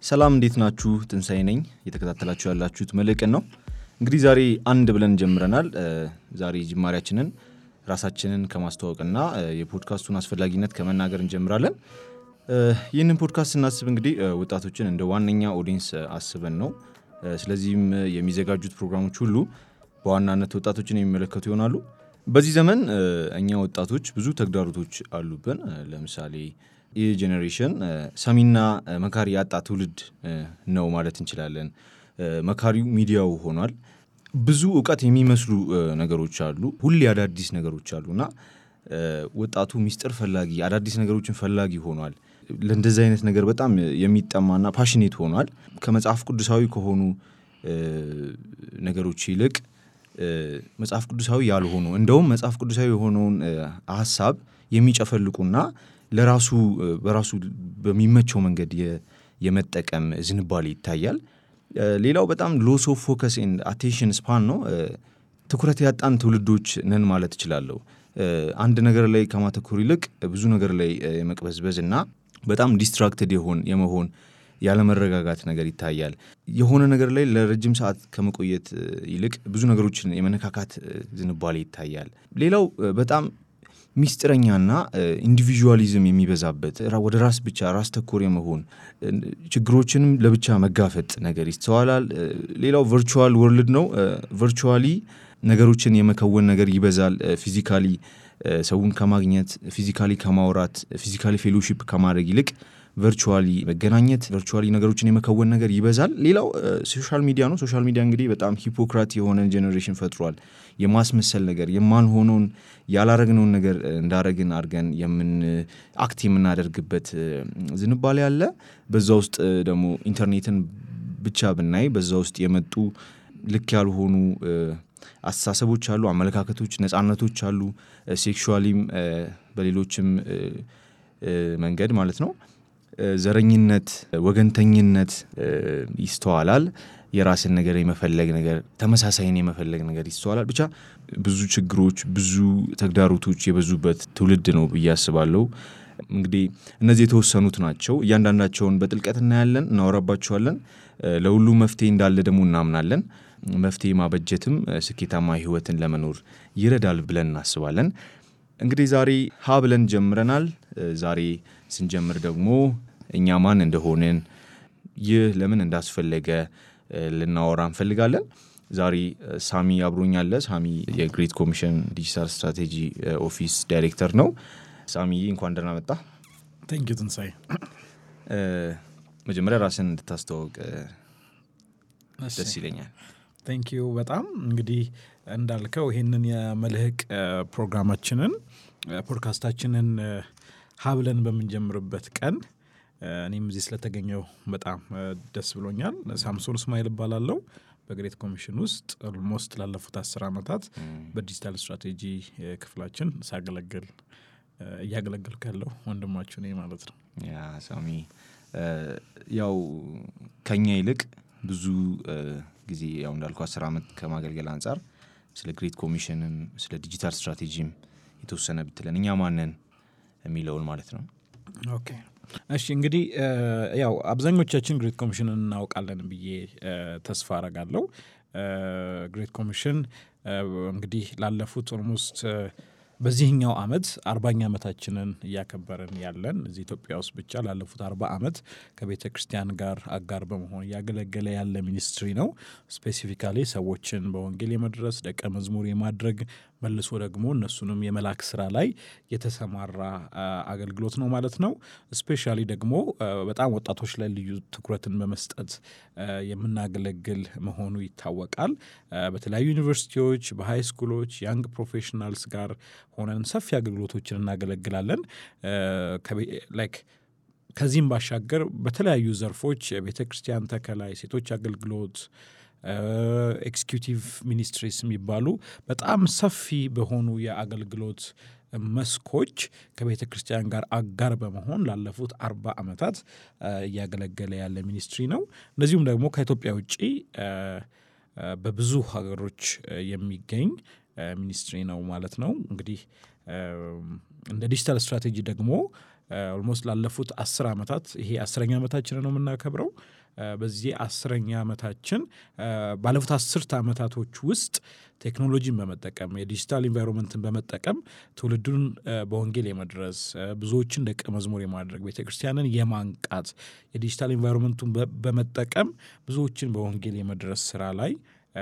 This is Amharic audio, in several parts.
ሰላም እንዴት ናችሁ? ትንሳኤ ነኝ። እየተከታተላችሁ ያላችሁት መልሕቅን ነው። እንግዲህ ዛሬ አንድ ብለን ጀምረናል። ዛሬ ጅማሬያችንን ራሳችንን ከማስተዋወቅና የፖድካስቱን አስፈላጊነት ከመናገር እንጀምራለን። ይህንን ፖድካስት ስናስብ እንግዲህ ወጣቶችን እንደ ዋነኛ ኦዲየንስ አስበን ነው። ስለዚህም የሚዘጋጁት ፕሮግራሞች ሁሉ በዋናነት ወጣቶችን የሚመለከቱ ይሆናሉ። በዚህ ዘመን እኛ ወጣቶች ብዙ ተግዳሮቶች አሉብን። ለምሳሌ ይህ ጄኔሬሽን ሰሚና መካሪ ያጣ ትውልድ ነው ማለት እንችላለን። መካሪው ሚዲያው ሆኗል። ብዙ ዕውቀት የሚመስሉ ነገሮች አሉ። ሁሌ አዳዲስ ነገሮች አሉና ወጣቱ ሚስጥር ፈላጊ አዳዲስ ነገሮችን ፈላጊ ሆኗል። ለእንደዚህ አይነት ነገር በጣም የሚጠማና ፓሽኔት ሆኗል። ከመጽሐፍ ቅዱሳዊ ከሆኑ ነገሮች ይልቅ መጽሐፍ ቅዱሳዊ ያልሆኑ እንደውም መጽሐፍ ቅዱሳዊ የሆነውን ሐሳብ የሚጨፈልቁና ለራሱ በራሱ በሚመቸው መንገድ የመጠቀም ዝንባሌ ይታያል። ሌላው በጣም ሎስ ኦፍ ፎከስ ኤንድ አቴንሽን ስፓን ነው። ትኩረት ያጣን ትውልዶች ነን ማለት እችላለሁ። አንድ ነገር ላይ ከማተኮር ይልቅ ብዙ ነገር ላይ የመቅበዝበዝ እና በጣም ዲስትራክትድ የመሆን ያለመረጋጋት ነገር ይታያል። የሆነ ነገር ላይ ለረጅም ሰዓት ከመቆየት ይልቅ ብዙ ነገሮችን የመነካካት ዝንባሌ ይታያል። ሌላው በጣም ሚስጥረኛና ኢንዲቪጁዋሊዝም የሚበዛበት ወደ ራስ ብቻ ራስ ተኮር የመሆን ችግሮችንም ለብቻ መጋፈጥ ነገር ይስተዋላል። ሌላው ቨርቹዋል ወርልድ ነው። ቨርቹዋሊ ነገሮችን የመከወን ነገር ይበዛል። ፊዚካሊ ሰውን ከማግኘት ፊዚካሊ ከማውራት ፊዚካሊ ፌሎሺፕ ከማድረግ ይልቅ ቨርቹዋሊ መገናኘት ቨርቹዋሊ ነገሮችን የመከወን ነገር ይበዛል። ሌላው ሶሻል ሚዲያ ነው። ሶሻል ሚዲያ እንግዲህ በጣም ሂፖክራት የሆነ ጄኔሬሽን ፈጥሯል። የማስመሰል ነገር የማንሆነውን ያላረግነውን ነገር እንዳረግን አድርገን አክት የምናደርግበት ዝንባሌ አለ። በዛ ውስጥ ደግሞ ኢንተርኔትን ብቻ ብናይ በዛ ውስጥ የመጡ ልክ ያልሆኑ አስተሳሰቦች አሉ፣ አመለካከቶች፣ ነፃነቶች አሉ። ሴክሹዋሊም በሌሎችም መንገድ ማለት ነው። ዘረኝነት፣ ወገንተኝነት ይስተዋላል። የራስን ነገር የመፈለግ ነገር ተመሳሳይን የመፈለግ ነገር ይስተዋላል። ብቻ ብዙ ችግሮች ብዙ ተግዳሮቶች የበዙበት ትውልድ ነው ብዬ አስባለሁ። እንግዲህ እነዚህ የተወሰኑት ናቸው። እያንዳንዳቸውን በጥልቀት እናያለን፣ እናወራባቸዋለን። ለሁሉም መፍትሄ እንዳለ ደግሞ እናምናለን። መፍትሄ ማበጀትም ስኬታማ ህይወትን ለመኖር ይረዳል ብለን እናስባለን። እንግዲህ ዛሬ ሀ ብለን ጀምረናል። ዛሬ ስንጀምር ደግሞ እኛ ማን እንደሆንን ይህ ለምን እንዳስፈለገ ልናወራ እንፈልጋለን። ዛሬ ሳሚ አብሮኛል። ሳሚ የግሬት ኮሚሽን ዲጂታል ስትራቴጂ ኦፊስ ዳይሬክተር ነው። ሳሚ እንኳን ደህና መጣ። ቴንክ ዩ ትንሳኤ። መጀመሪያ ራስን እንድታስተዋውቅ ደስ ይለኛል። ቴንክ ዩ በጣም እንግዲህ እንዳልከው ይሄንን የመልሕቅ ፕሮግራማችንን ፖድካስታችንን ሀብለን በምንጀምርበት ቀን እኔም እዚህ ስለተገኘው በጣም ደስ ብሎኛል። ሳምሶን እስማኤል እባላለሁ። በግሬት ኮሚሽን ውስጥ ኦልሞስት ላለፉት 10 ዓመታት በዲጂታል ስትራቴጂ ክፍላችን እያገለገልኩ ያለው ወንድማችሁ ነኝ ማለት ነው። ያ ሳሚ ያው ከኛ ይልቅ ብዙ ጊዜ ያው እንዳልኩ 10 ዓመት ከማገልገል አንፃር ስለ ግሬት ኮሚሽንም ስለ ዲጂታል ስትራቴጂም የተወሰነ ብትለን እኛ ማንን የሚለውን ማለት ነው። ኦኬ እሺ። እንግዲህ ያው አብዛኞቻችን ግሬት ኮሚሽንን እናውቃለን ብዬ ተስፋ አረጋለሁ። ግሬት ኮሚሽን እንግዲህ ላለፉት ኦልሞስት በዚህኛው ዓመት 40ኛ ዓመታችንን እያከበርን ያለን እዚህ ኢትዮጵያ ውስጥ ብቻ ላለፉት 40 ዓመት ከቤተ ክርስቲያን ጋር አጋር በመሆን እያገለገለ ያለ ሚኒስትሪ ነው። ስፔሲፊካሊ ሰዎችን በወንጌል የመድረስ ደቀ መዝሙር የማድረግ መልሶ ደግሞ እነሱንም የመላክ ስራ ላይ የተሰማራ አገልግሎት ነው ማለት ነው። ስፔሻሊ ደግሞ በጣም ወጣቶች ላይ ልዩ ትኩረትን በመስጠት የምናገለግል መሆኑ ይታወቃል። በተለያዩ ዩኒቨርሲቲዎች በሃይ ስኩሎች ያንግ ፕሮፌሽናልስ ጋር ሆነን ሰፊ አገልግሎቶችን እናገለግላለን። ከዚህም ባሻገር በተለያዩ ዘርፎች የቤተ ክርስቲያን ተከላ፣ ሴቶች አገልግሎት፣ ኤክስኪዩቲቭ ሚኒስትሪስ የሚባሉ በጣም ሰፊ በሆኑ የአገልግሎት መስኮች ከቤተ ክርስቲያን ጋር አጋር በመሆን ላለፉት 40 ዓመታት እያገለገለ ያለ ሚኒስትሪ ነው። እንደዚሁም ደግሞ ከኢትዮጵያ ውጪ በብዙ ሀገሮች የሚገኝ ሚኒስትሪ ነው ማለት ነው። እንግዲህ እንደ ዲጂታል ስትራቴጂ ደግሞ ኦልሞስት ላለፉት 10 ዓመታት ይሄ 10ኛ ዓመታችን ነው የምናከብረው። በዚህ 10ኛ ዓመታችን ባለፉት 10 ዓመታቶች ውስጥ ቴክኖሎጂን በመጠቀም የዲጂታል ኢንቫይሮንመንትን በመጠቀም ትውልዱን በወንጌል የመድረስ ብዙዎችን ደቀ መዝሙር የማድረግ ቤተክርስቲያንን የማንቃት የዲጂታል ኢንቫይሮንመንቱን በመጠቀም ብዙዎችን በወንጌል የመድረስ ስራ ላይ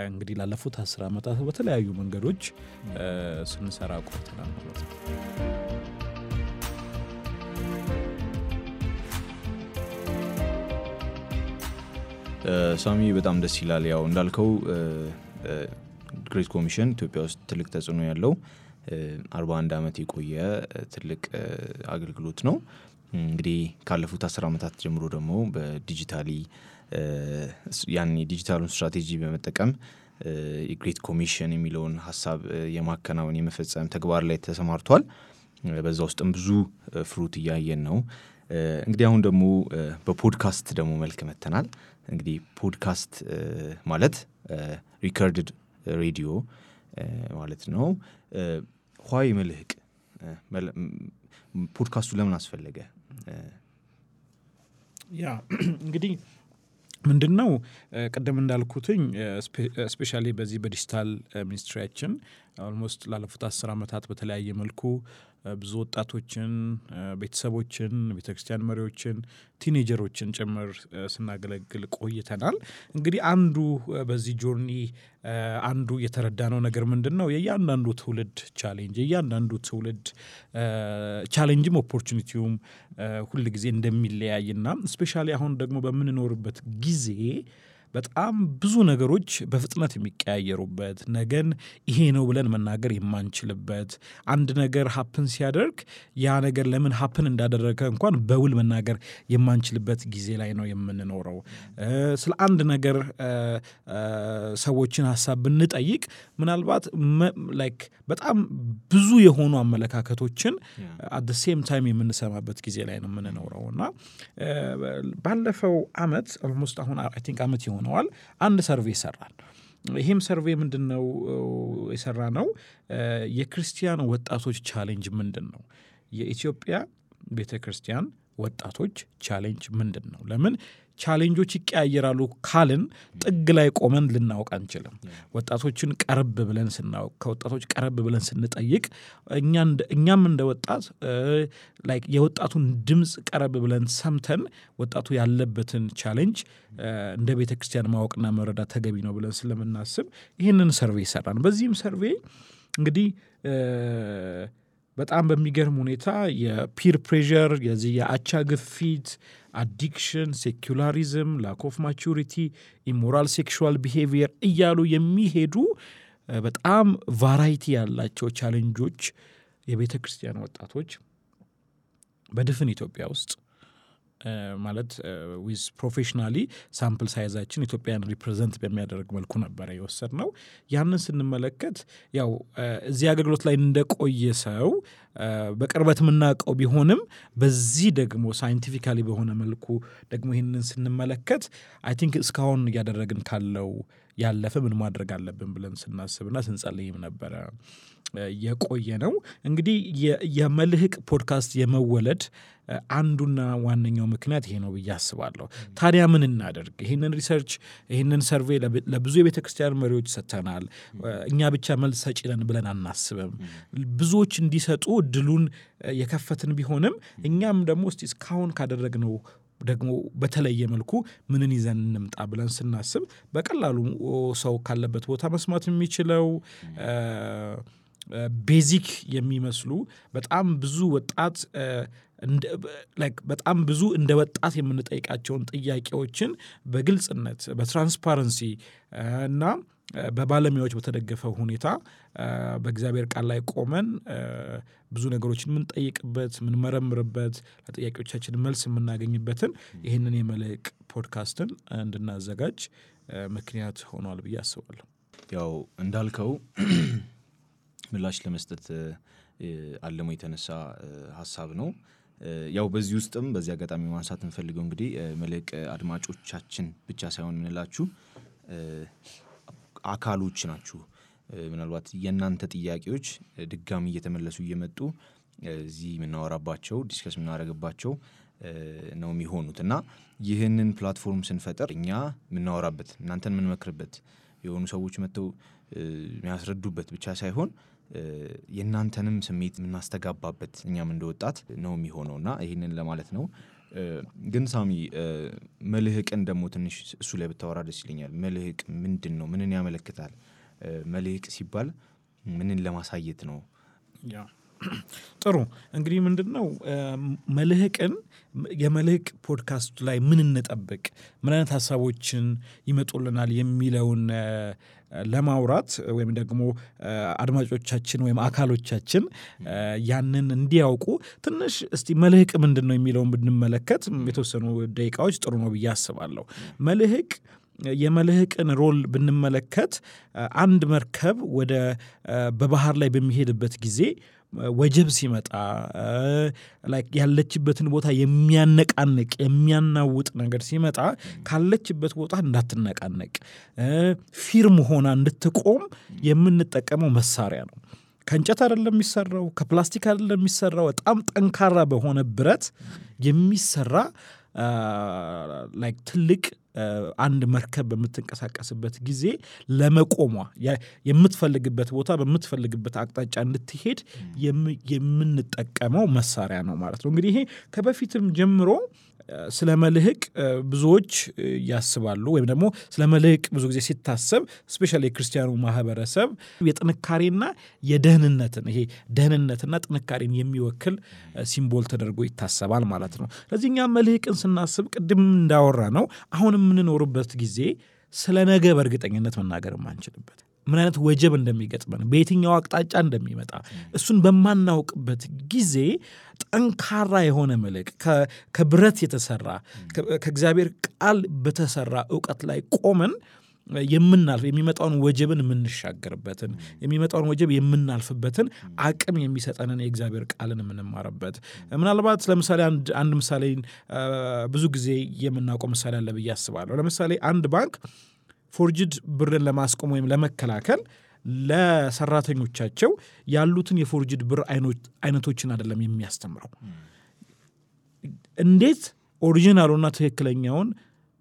እንግዲህ ላለፉት 10 ዓመታት በተለያዩ መንገዶች ስንሰራ ቆይተናል ማለት ነው። ሳሚ በጣም ደስ ይላል። ያው እንዳልከው ግሬት ኮሚሽን ኢትዮጵያ ውስጥ ትልቅ ተጽዕኖ ያለው 41 ዓመት የቆየ ትልቅ አገልግሎት ነው። እንግዲህ ካለፉት 10 ዓመታት ጀምሮ ደግሞ በዲጂታሊ ያኔ ዲጂታሉን ስትራቴጂ በመጠቀም የግሬት ኮሚሽን የሚለውን ሐሳብ የማከናወን የመፈጸም ተግባር ላይ ተሰማርቷል። በዛ ውስጥም ብዙ ፍሩት እያየን ነው። እንግዲህ አሁን ደግሞ በፖድካስት ደግሞ መልክ መተናል። እንግዲህ ፖድካስት ማለት ሪከርድድ ሬዲዮ ማለት ነው። ኋይ መልህቅ ፖድካስቱ ለምን አስፈለገ? ያ እንግዲህ ምንድነው ቀደም እንዳልኩትኝ ስፔሻሊ በዚህ በዲጂታል ሚኒስትሪያችን ኦልሞስት ላለፉት 10 ዓመታት በተለያየ መልኩ ብዙ ወጣቶችን፣ ቤተሰቦችን፣ ቤተክርስቲያን መሪዎችን፣ ቲኔጀሮችን ጭምር ስናገለግል ቆይተናል። እንግዲህ አንዱ በዚህ ጆርኒ አንዱ የተረዳነው ነገር ምንድነው የእያንዳንዱ ትውልድ ቻሌንጅ የእያንዳንዱ ትውልድ ቻሌንጅም ኦፖርቹኒቲውም ሁሉ ጊዜ እንደሚለያይና ስፔሻሊ አሁን ደግሞ በምንኖርበት ጊዜ በጣም ብዙ ነገሮች በፍጥነት የሚቀያየሩበት ነገን ይሄ ነው ብለን መናገር የማንችልበት አንድ ነገር ሀፕን ሲያደርግ ያ ነገር ለምን ሀፕን እንዳደረገ እንኳን በውል መናገር የማንችልበት ጊዜ ላይ ነው የምንኖረው። ስለ አንድ ነገር ሰዎችን ሐሳብ ብንጠይቅ ምናልባት ላይክ በጣም ብዙ የሆኑ አመለካከቶችን at the same time የምንሰማበት ጊዜ ላይ ነው የምንኖረውና ባለፈው አመት ኦልሞስት አሁን አይ ቲንክ አመት ይሆነዋል አንድ ሰርቬይ ሰራን። ይሄም ሰርቬይ ምንድነው የሰራነው የክርስቲያን ወጣቶች ቻሌንጅ ምንድነው? የኢትዮጵያ ቤተክርስቲያን ወጣቶች ቻሌንጅ ምንድነው? ለምን ቻሌንጆች ይቀያየራሉ ካልን ጥግ ላይ ቆመን ልናውቅ አንችልም። ወጣቶችን ቀረብ ብለን ስናውቅ ከወጣቶች ቀረብ ብለን ስንጠይቅ እኛም እንደ ወጣት ላይክ የወጣቱን ድምጽ ቀረብ ብለን ሰምተን ወጣቱ ያለበትን ቻሌንጅ እንደ ቤተክርስቲያን ማወቅና መረዳት ተገቢ ነው ብለን ስለምናስብ ይሄንን ሰርቬይ ሰራን። በዚህም ሰርቬይ እንግዲህ በጣም በሚገርም ሁኔታ የፒር ፕሬዠር የዚህ የአቻ ግፊት አዲክሽን ሴኩላሪዝም ላክ ኦፍ ማቹሪቲ ኢሞራል ሴክሹዋል ቢሄቪየር እያሉ የሚሄዱ በጣም ቫራይቲ ያላቸው ቻሌንጆች የቤተ ክርስቲያን ወጣቶች በድፍን ኢትዮጵያ ውስጥ ማለት ዊዝ ፕሮፌሽናሊ ሳምፕል ሳይዛችን ኢትዮጵያን ሪፕሬዘንት በሚያደርግ መልኩ ነበር የወሰድነው። ያንን ስንመለከት ያው እዚህ አገልግሎት ላይ እንደቆየ ሰው በቅርበት የምናውቀው ቢሆንም በዚህ ደግሞ ሳይንቲፊካሊ በሆነ መልኩ ደግሞ ይህንን ስንመለከት አይ ቲንክ እስካሁን እያደረግን ካለው ያለፈ ምን ማድረግ አለብን ብለን ስናስብና ስንጸልይም ነበረ የቆየ ነው። እንግዲህ የመልህቅ ፖድካስት የመወለድ አንዱና ዋነኛው ምክንያት ይሄ ነው ብዬ አስባለሁ። ታዲያ ምን እናደርግ? ይሄንን ሪሰርች ይሄንን ሰርቬይ ለብዙ የቤተክርስቲያን መሪዎች ሰጥተናል። እኛ ብቻ መልስ ሰጪ ነን ብለን አናስብም። ብዙዎች እንዲሰጡ እድሉን የከፈትን ቢሆንም እኛም ደግሞ እስቲ እስካሁን ካደረግነው ደግሞ በተለየ መልኩ ምንን ይዘን እንምጣ ብለን ስናስብ በቀላሉ ሰው ካለበት ቦታ መስማት የሚችለው ቤዚክ የሚመስሉ በጣም ብዙ ወጣት በጣም ብዙ እንደ ወጣት የምንጠይቃቸውን ጥያቄዎችን በግልጽነት በትራንስፓረንሲ እና በባለሙያዎች በተደገፈው ሁኔታ በእግዚአብሔር ቃል ላይ ቆመን ብዙ ነገሮችን የምንጠይቅበት የምንመረምርበት ለጥያቄዎቻችን መልስ የምናገኝበትን ይህንን የመልህቅ ፖድካስትን እንድናዘጋጅ ምክንያት ሆኗል ብዬ አስባለሁ። ያው እንዳልከው ምላሽ ለመስጠት አለሞ የተነሳ ሐሳብ ነው። ያው በዚህ ውስጥም በዚህ አጋጣሚ ማንሳት እንፈልገው እንግዲህ መልህቅ አድማጮቻችን ብቻ ሳይሆን ምንላችሁ አካሎች ናችሁ። ምናልባት የናንተ ጥያቄዎች ድጋሚ እየተመለሱ እየመጡ እዚህ የምናወራባቸው ዲስከስ የምናደርግባቸው ነው የሚሆኑት እና ይህንን ፕላትፎርም ስንፈጥር እኛ የምናወራበት እናንተን የምንመክርበት የሆኑ ሰዎች መጥተው የሚያስረዱበት ብቻ ሳይሆን የእናንተንም ስሜት የምናስተጋባበት እኛም እንደወጣት ነው የሚሆነውና ይህንን ለማለት ነው። ግን ሳሚ መልህቅን ደግሞ ትንሽ እሱ ላይ ብታወራ ደስ ይለኛል። መልህቅ ምንድን ነው? ምንን ያመለክታል? መልህቅ ሲባል ምንን ለማሳየት ነው? ያ ጥሩ እንግዲህ ምንድነው መልህቅን የመልህቅ ፖድካስት ላይ ምን እንጠብቅ ምን አይነት ሐሳቦችን ይመጡልናል የሚለውን ለማውራት ወይም ደግሞ አድማጮቻችን ወይም አካሎቻችን ያንን እንዲያውቁ ትንሽ እስቲ መልህቅ ምንድነው የሚለውን ብንመለከት የተወሰኑ ደቂቃዎች ጥሩ ነው ብዬ አስባለሁ። መልህቅ የመልህቅን ሮል ብንመለከት አንድ መርከብ ወደ በባህር ላይ በሚሄድበት ጊዜ ወጀብ ሲመጣ ላይክ ያለችበትን ቦታ የሚያነቃንቅ የሚያናውጥ ነገር ሲመጣ ካለችበት ቦታ እንዳትነቃነቅ ፊርም ሆና እንድትቆም የምንጠቀመው መሳሪያ ነው። ከእንጨት አይደለም የሚሰራው፣ ከፕላስቲክ አይደለም የሚሰራው፣ በጣም ጠንካራ በሆነ ብረት የሚሰራ ላይክ ትልቅ አንድ መርከብ በምትንቀሳቀስበት ጊዜ ለመቆሟ የምትፈልግበት ቦታ በምትፈልግበት አቅጣጫ እንድትሄድ የምንጠቀመው መሳሪያ ነው ማለት ነው። እንግዲህ ይሄ ከበፊትም ጀምሮ ስለ መልህቅ ብዙዎች ያስባሉ ወይም ደግሞ ስለ መልህቅ ብዙ ጊዜ ሲታሰብ ስፔሻሊ የክርስቲያኑ ማህበረሰብ የጥንካሬና የደህንነትን ይሄ ደህንነትና ጥንካሬን የሚወክል ሲምቦል ተደርጎ ይታሰባል ማለት ነው። ስለዚህ እኛ መልህቅን ስናስብ ቅድም እንዳወራ ነው አሁን የምንኖርበት ጊዜ ስለ ነገ በእርግጠኝነት መናገር የማንችልበት ምን አይነት ወጀብ እንደሚገጥመን በየትኛው አቅጣጫ እንደሚመጣ እሱን በማናውቅበት ጊዜ ጠንካራ የሆነ መልህቅ ከብረት የተሰራ ከእግዚአብሔር ቃል በተሰራ ዕውቀት ላይ ቆመን የምናልፍ የሚመጣውን ወጀብን የምንሻገርበትን የሚመጣውን ወጀብ የምናልፍበትን አቅም የሚሰጠንን የእግዚአብሔር ቃልን የምንማርበት ምናልባት ለምሳሌ አንድ ምሳሌ ብዙ ጊዜ የምናውቀው ምሳሌ አለ ብዬ አስባለሁ። ለምሳሌ አንድ ባንክ ፎርጅድ ብርን ለማስቆም ወይም ለመከላከል ለሰራተኞቻቸው ያሉትን የፎርጅድ ብር አይነቶችን አይደለም የሚያስተምረው እንዴት ኦሪጂናሉና ትክክለኛውን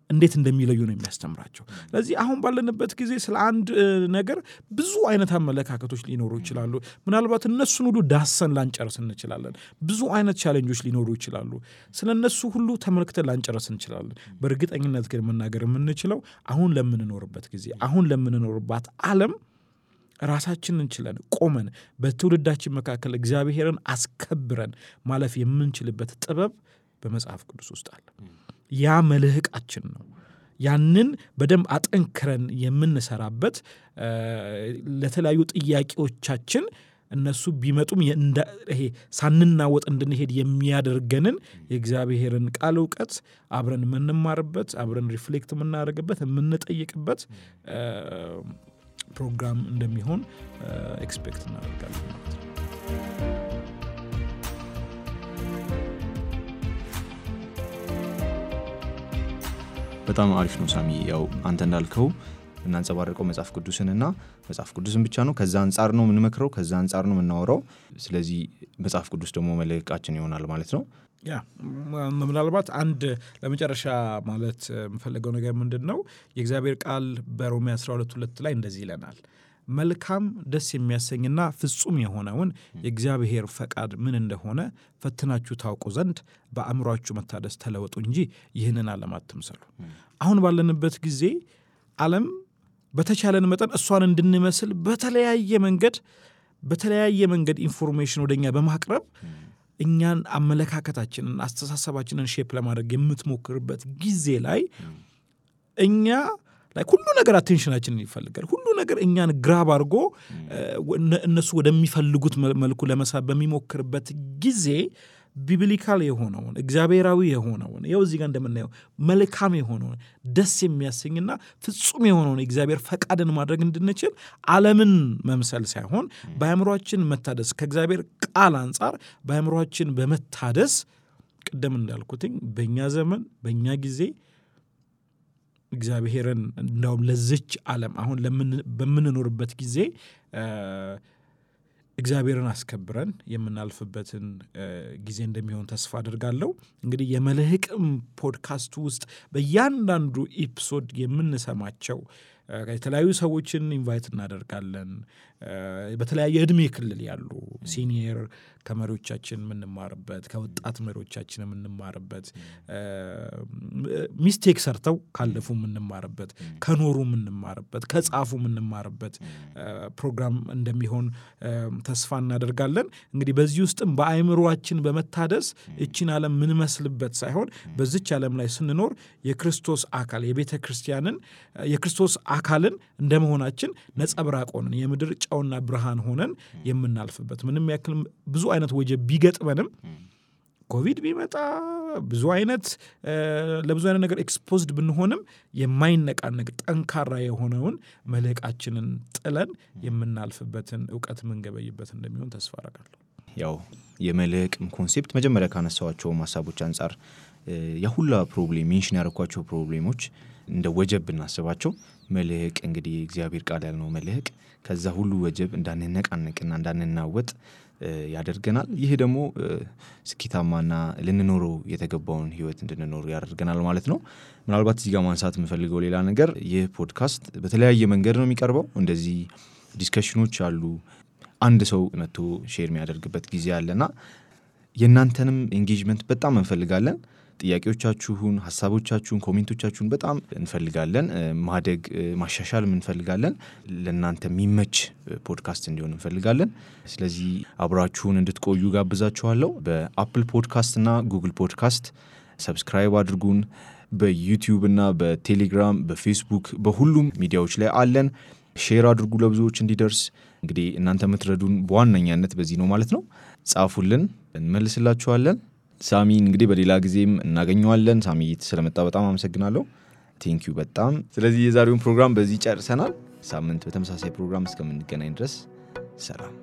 እንዴት እንደሚለዩ ነው የሚያስተምራቸው። ስለዚህ አሁን ባለንበት ጊዜ ስለ አንድ ነገር ብዙ አይነት አመለካከቶች ሊኖሩ ይችላሉ። ምናልባት እነሱን ሁሉ ዳሰን ላንጨርስ እንችላለን። ብዙ አይነት ቻሌንጆች ሊኖሩ ይችላሉ። ስለነሱ ሁሉ ተመልክተን ላንጨርስ እንችላለን። በእርግጠኝነት ግን መናገር የምንችለው አሁን ለምንኖርበት ጊዜ አሁን ለምንኖርባት ዓለም ራሳችንን ችለን ቆመን በትውልዳችን መካከል እግዚአብሔርን አስከብረን ማለፍ የምንችልበት ጥበብ በመጽሐፍ ቅዱስ ውስጥ አለ። ያ መልህቃችን ነው። ያንን በደንብ አጠንክረን የምንሰራበት ለተለያዩ ጥያቄዎቻችን እነሱ ቢመጡም ይሄ ሳንናወጥ እንድንሄድ የሚያደርገንን የእግዚአብሔርን ቃል ዕውቀት አብረን የምንማርበት አብረን ሪፍሌክት የምናደርግበት የምንጠይቅበት ፕሮግራም እንደሚሆን ኤክስፔክት እናደርጋለን ማለት ነው። በጣም አሪፍ ነው ሳሚ። ያው አንተ እንዳልከው እናንጸባርቀው መጽሐፍ ቅዱስንና መጽሐፍ ቅዱስን ብቻ ነው። ከዛ አንጻር ነው የምንመክረው፣ ከዛ አንጻር ነው የምናወራው። ስለዚህ መጽሐፍ ቅዱስ ደግሞ መልህቃችን ይሆናል ማለት ነው። ያ ምናልባት አንድ ለመጨረሻ ማለት የምፈልገው ነገር ምንድነው የእግዚአብሔር ቃል በሮሜ 12:2 ላይ እንደዚህ ይለናል። መልካም ደስ የሚያሰኝና ፍጹም የሆነውን የእግዚአብሔር ፈቃድ ምን እንደሆነ ፈትናችሁ ታውቁ ዘንድ በአእምሮአችሁ መታደስ ተለወጡ እንጂ ይህንን ዓለም አትምሰሉ። አሁን ባለንበት ጊዜ ዓለም በተቻለን መጠን እሷን እንድንመስል በተለያየ መንገድ ኢንፎርሜሽን ወደኛ በማቅረብ እኛን አመለካከታችንን አስተሳሰባችንን ሼፕ ለማድረግ የምትሞክርበት ጊዜ ላይ እኛ ላይ ሁሉ ነገር አቴንሽናችንን ይፈልጋል። ሁሉ ነገር እኛን ግራብ አድርጎ እነሱ ወደሚፈልጉት መልኩ ለመሳብ በሚሞክርበት ጊዜ ቢብሊካል የሆነውን እግዚአብሔራዊ የሆነውን ይኸው እዚህ ጋር እንደምናየው መልካም የሆነውን ደስ የሚያሰኝና ፍጹም የሆነውን እግዚአብሔር ፈቃድን ማድረግ እንድንችል ዓለምን መምሰል ሳይሆን በአእምሮአችን መታደስ ከእግዚአብሔር ቃል አንጻር በአእምሮአችን በመታደስ ቅድም እንዳልኩትኝ በእኛ ዘመን በእኛ ጊዜ እግዚአብሔርን እንደውም ለዚች ዓለም አሁን በምንኖርበት ጊዜ እግዚአብሔርን አስከብረን የምናልፍበትን ጊዜ እንደሚሆን ተስፋ አድርጋለሁ። እንግዲህ የመልህቅም ፖድካስት ውስጥ በእያንዳንዱ ኤፒሶድ የምንሰማቸው የተለያዩ ሰዎችን ኢንቫይት እናደርጋለን። በተለያየ እድሜ ክልል ያሉ ሲኒየር ከመሪዎቻችን የምንማርበት፣ ከወጣት መሪዎቻችን የምንማርበት፣ ሚስቴክ ሰርተው ካለፉ የምንማርበት፣ ከኖሩ የምንማርበት፣ ከጻፉ የምንማርበት ፕሮግራም እንደሚሆን ተስፋ እናደርጋለን። እንግዲህ በዚህ ውስጥም በአእምሮአችን በመታደስ እቺን ዓለም ምንመስልበት ሳይሆን በዚች ዓለም ላይ ስንኖር የክርስቶስ አካል የቤተ ክርስቲያንን የክርስቶስ አካልን እንደመሆናችን ነጸብራቅ ሆነን የምድር ጨውና ብርሃን ሆነን የምናልፍበት ምንም ያክል ብዙ አይነት ወጀብ ቢገጥመንም ኮቪድ ቢመጣ ብዙ አይነት ለብዙ አይነት ነገር ኤክስፖዝድ ብንሆንም የማይነቃነቅ ጠንካራ የሆነውን መልህቃችንን ጥለን የምናልፍበትን ዕውቀት ምንገበይበት እንደሚሆን ተስፋ አደርጋለሁ። ያው የመልህቅም ኮንሴፕት መጀመሪያ ካነሳዋቸው ሐሳቦች አንፃር የሁላ ፕሮብሌም ሜንሽን ያደረኳቸው ፕሮብሌሞች እንደ ወጀብ እናስባቸው። መልህቅ እንግዲህ እግዚአብሔር ቃል ያልነው መልህቅ ከዛ ሁሉ ወጀብ እንዳንነቃነቅና እንዳንናወጥ ያደርገናል። ይህ ደግሞ ስኬታማና ልንኖረው የተገባውን ህይወት እንድንኖር ያደርገናል ማለት ነው። ምናልባት እዚህ ጋር ማንሳት የምፈልገው ሌላ ነገር ይህ ፖድካስት በተለያየ መንገድ ነው የሚቀርበው። እንደዚህ ዲስከሽኖች አሉ። አንድ ሰው መጥቶ ሼር የሚያደርግበት ጊዜ አለና የእናንተንም ኤንጌጅመንት በጣም እንፈልጋለን። ጥያቄዎቻችሁን፣ ሐሳቦቻችሁን፣ ኮሜንቶቻችሁን በጣም እንፈልጋለን። ማደግ ማሻሻልም እንፈልጋለን። ለእናንተ የሚመች ፖድካስት እንዲሆን እንፈልጋለን። ስለዚህ አብራችሁን እንድትቆዩ ጋብዛችኋለሁ። በአፕል ፖድካስት እና ጉግል ፖድካስት ሰብስክራይብ አድርጉን። በዩቲዩብ እና በቴሌግራም በፌስቡክ በሁሉም ሚዲያዎች ላይ አለን። ሼር አድርጉ ለብዙዎች እንዲደርስ። እንግዲህ እናንተ የምትረዱን በዋነኛነት በዚህ ነው ማለት ነው። ጻፉልን፣ እንመልስላችኋለን። ሳሚን እንግዲህ በሌላ ጊዜም እናገኘዋለን። ሳሚ ስለመጣ በጣም አመሰግናለሁ። ቴንኪዩ በጣም። ስለዚህ የዛሬውን ፕሮግራም በዚህ ጨርሰናል። ሳምንት በተመሳሳይ ፕሮግራም እስከምንገናኝ ድረስ ሰላም።